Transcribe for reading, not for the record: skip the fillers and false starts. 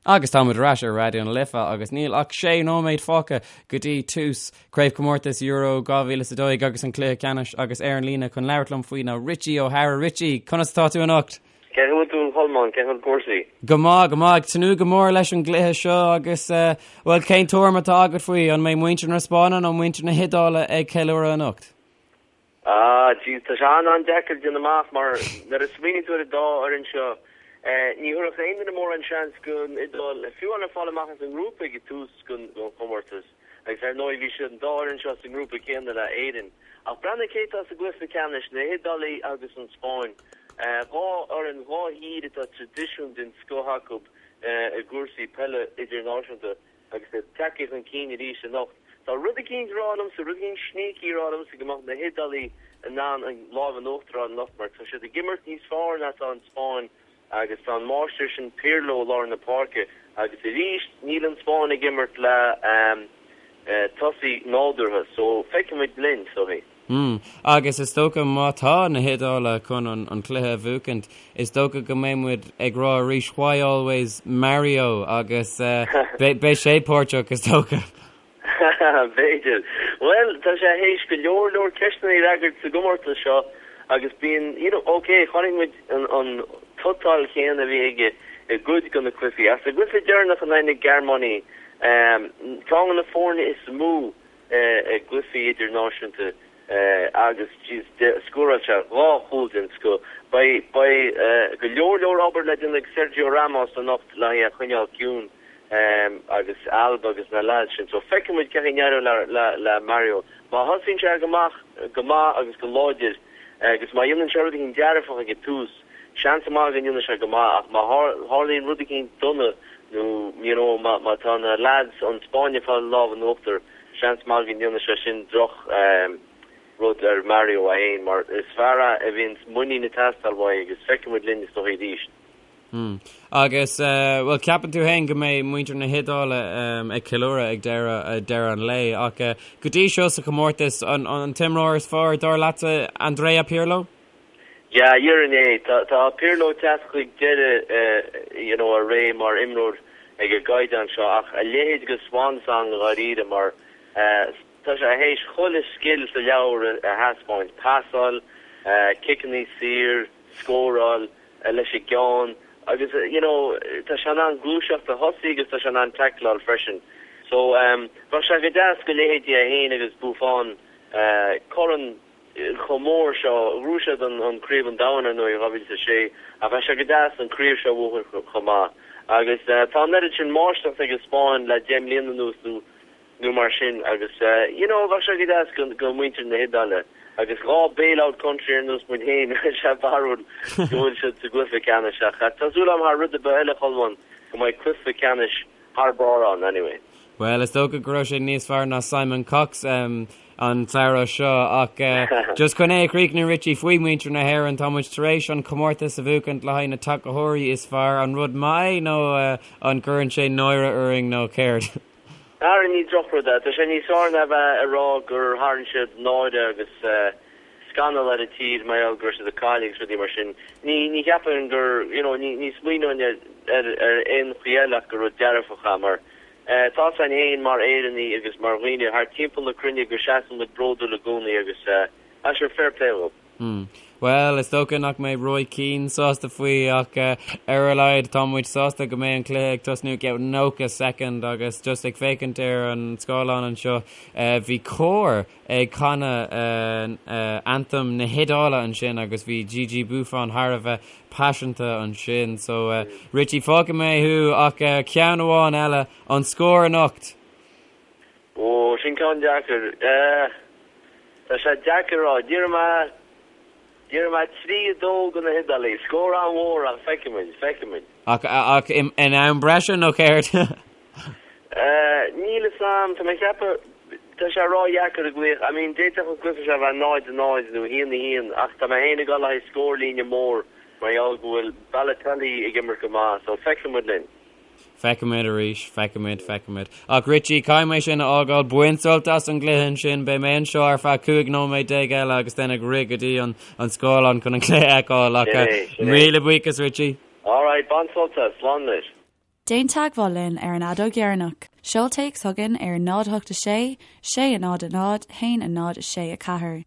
Agus táimid ar ais ar Raidió na Life agus níl ach sé nóiméad fágtha go dtí tús Craobhchomórtas Euro 2012 agus an cluiche ceannais agus ar an líne chun labhairt liom faoi ná Richie O'Hara. Richie, conas atá tú anocht? Cén chaoi a bhfuil tú a Cholmáin, cén chaoi a bhfuil cúrsaí? Go maith, go maith. Ag tnúth go mór leis an gcluiche seo agus, bhuel, cén tuairim atá agat faoi? An mbeidh muintir na Spáinne nó muintir na hIodáile ag ceiliúradh anocht? Ah, jeez, tá sé an-an-deacair déanamh amach mar nuair a smaoiníonn tú ar an dá fhoireann seo, ní thabharfadh aon duine mórán seans don Iodáil, fiú amháin fáil amach as an ngrúpa ag tús den chomórtas agus ar ndóigh bhí siad an dá fhoireann seo sa ngrúpa céanna le Éirinn. Ach breathnaigh cé atá sa gcluiche ceannais, na hIodálaigh agus an Spáinn. Dhá fhoireann, dhá thír atá traidisiún den scoth acu i gcúrsaí peile idirnáisiúnta. Agus iad tagtha chun cinn arís anocht. Tá rud eicínt ag rá liomsa, rud eicínt sneaky ag rá liomsa go mbeadh na hIodálaigh in ann an lámh in uachtar a fháil anocht mar tá siad ag imirt níos fearr ná atá an Spáinn agus tá an máistir sin Pirlo i lár na páirce agus arís níl an Spáinn ag imirt le tosaí nádúrtha so feicfimid linn, is dóichí. Hmm. Agus is dócha má tá na hIodálaigh chun an cluiche a bhuachaint, is dócha go mbeidh muid ag rá arís why always Mario agus beidh sé páirteach is dócha. B'fhéidir. Bhuel, tá sé théis go leor leor ceisteanna a fhreagairt sa gcomórtas seo agus bíonn, you know, ok, chonaic muid an tsotáil chéanna a bhí aige i gcuid de na cluichí. Ach sa gcluiche deireanach in aghaidh na Gearmáine, ceann de na foirne is mó i gcluichí idirnáisiúnta agus scóráil sé dhá chúl den scoth. Beidh go leor leor obair le déanamh ag Sergio Ramos anocht le é a choinneáil ciúin agus Alba agus na leaids sin. So feicfidh muid cén chaoi a n-éireoidh le Mario. Má thosaíonn sé go maith go maith agus go láidir agus má dhéanann sé rud éicint dearfach ag an tús, seans maith go ndéanfaidh sé go maith ach má tharlaíonn rud éicint dona nó you know má tá na lads ón Spáinn ag fáil lámh in uachtar, seans maith go ndéanfaidh sé sin droch rud ar Mario é fhéin mar is fear é a bhíonn muinín ag teastáil uaidh agus feicfidh muid linn is dóigh arís. Hmm. Agus bhuel ceapann tú fhéin go mbeidh muintir na hIodáile ag ceiliúradh ag deireadh deireadh an lae ach go dtí seo sa chomórtas an an t-imreoir is fearr dar leatsa Andrea Pirlo? Yeah, déarfainn é. Tá tá Pirlo ag teacht chuig deireadh you know a ré mar imreoir ag an gcaighdeán seo ach a leithéid de swan song dháiríre mar tá sé théis chuile scil sa leabhar a thaispeáint, pasáil, ciceanna saor, scóráil leis an gceann agus you know tá sé in ann gluaiseacht a thosaí agus tá sé in ann tackleáil freisin. So bheadh sé go deas go leithéidí é féin agus Buffon corn chomh mór seo. Ghnóthaigh siad an Craobh an Domhain ar ndóigh in 2006 ach bheadh sé go deas an craobh seo a bhuachan chomh maith. Agus tá an oiread sin máistreacht ag an Spáinn le 10 mbliana anuas nó nó mar sin agus you know bheadh sé go deas go muintir na hIodáile agus dhá bailout country ar nós muid féin tá sé barrúil go bhfuil siad sa gcluiche ceannais ach tá súil agam thar rud ar bith eile Cholmáin go mbeidh cluiche ceannais thar barr ann anyway. Bhuel, is dócha go raibh sé níos fearr ná Simon Cox an tsamhradh seo ach just chun é a chríochnú Richie faoi mhuintir na hÉireann, tá muid tar éis an comórtas a bhuachaint le haghaidh na tacaitheoirí is fearr, an rud maith é nó an gcuireann sé náire orainn nó céard? Ara ní drochrud é, tá sé níos fearr ná bheith ag rá gur tharraing siad náire agus scannal ar an tír mar gheall go raibh siad ag cailleadh agus rudaí mar sin. Ní, ní cheapaim gur, you know, ní, ní smaoineoinn ar, ar, ar aon chaoi eile ach gur rud dearfach é mar eh, tá 'fhios againn féin mar Éireannaigh agus mar dhaoine thar timpeall na cruinne go seasann muid bródúil i gcónaí agus eh, ah sure, fair play dhóibh. Hmm. Bhuel, is dócha nach mbeidh Roy Keane sásta faoi ach ar a laghad tá muid sásta go mbeidh an cluiche ag tosnú i gceann 90 soicind agus just ag féachaint ar an scáileán anseo bhí cór ag canadh anthem na hIodáile ansin agus bhí Gigi Buffon thar a bheith paiseanta ansin. So Richie, fágfaidh mé thú ach ceann amháin eile, an scór anocht! Ó, sin ceann deacair. Tá sé deacair a rá. Déarfaidh mé, déarfaidh mé 3, 2 do na hIodálaigh. Scór an-mhór ach feicfidh muid, feicfidh muid. Ach, ach in am breise nó céard? Níl fhios a'm, tá mé ag ceapadh, tá sé ró-dheacair a ghlaoch. I mean, d'fhéadfadh an cluiche seo a bheith 0, 0 nó 1, 1 ach tá mé féin ag dul le haghaidh scórlíne mór mar gheall go bhfuil Balotelli ag imirt go maith, so feicfidh muid linn. Feicfimid arís, feicfimid, feicfimid. Ach Richie, caithfidh mé sin a fhágáil, bain sult as an gcluiche ansin, beidh mé anseo ar feadh 15 nóiméad eile agus then ag rith go dtí an scáileán chun an cluiche a fheiceáil. Ach míle buíochas Richie. Alright, bain sult as, slán leis. Déan teagmháil linn ar an fheadóg dheireanach. Seol téacs chugainn ar 0 8 6 6 0 0 1 0 6 4.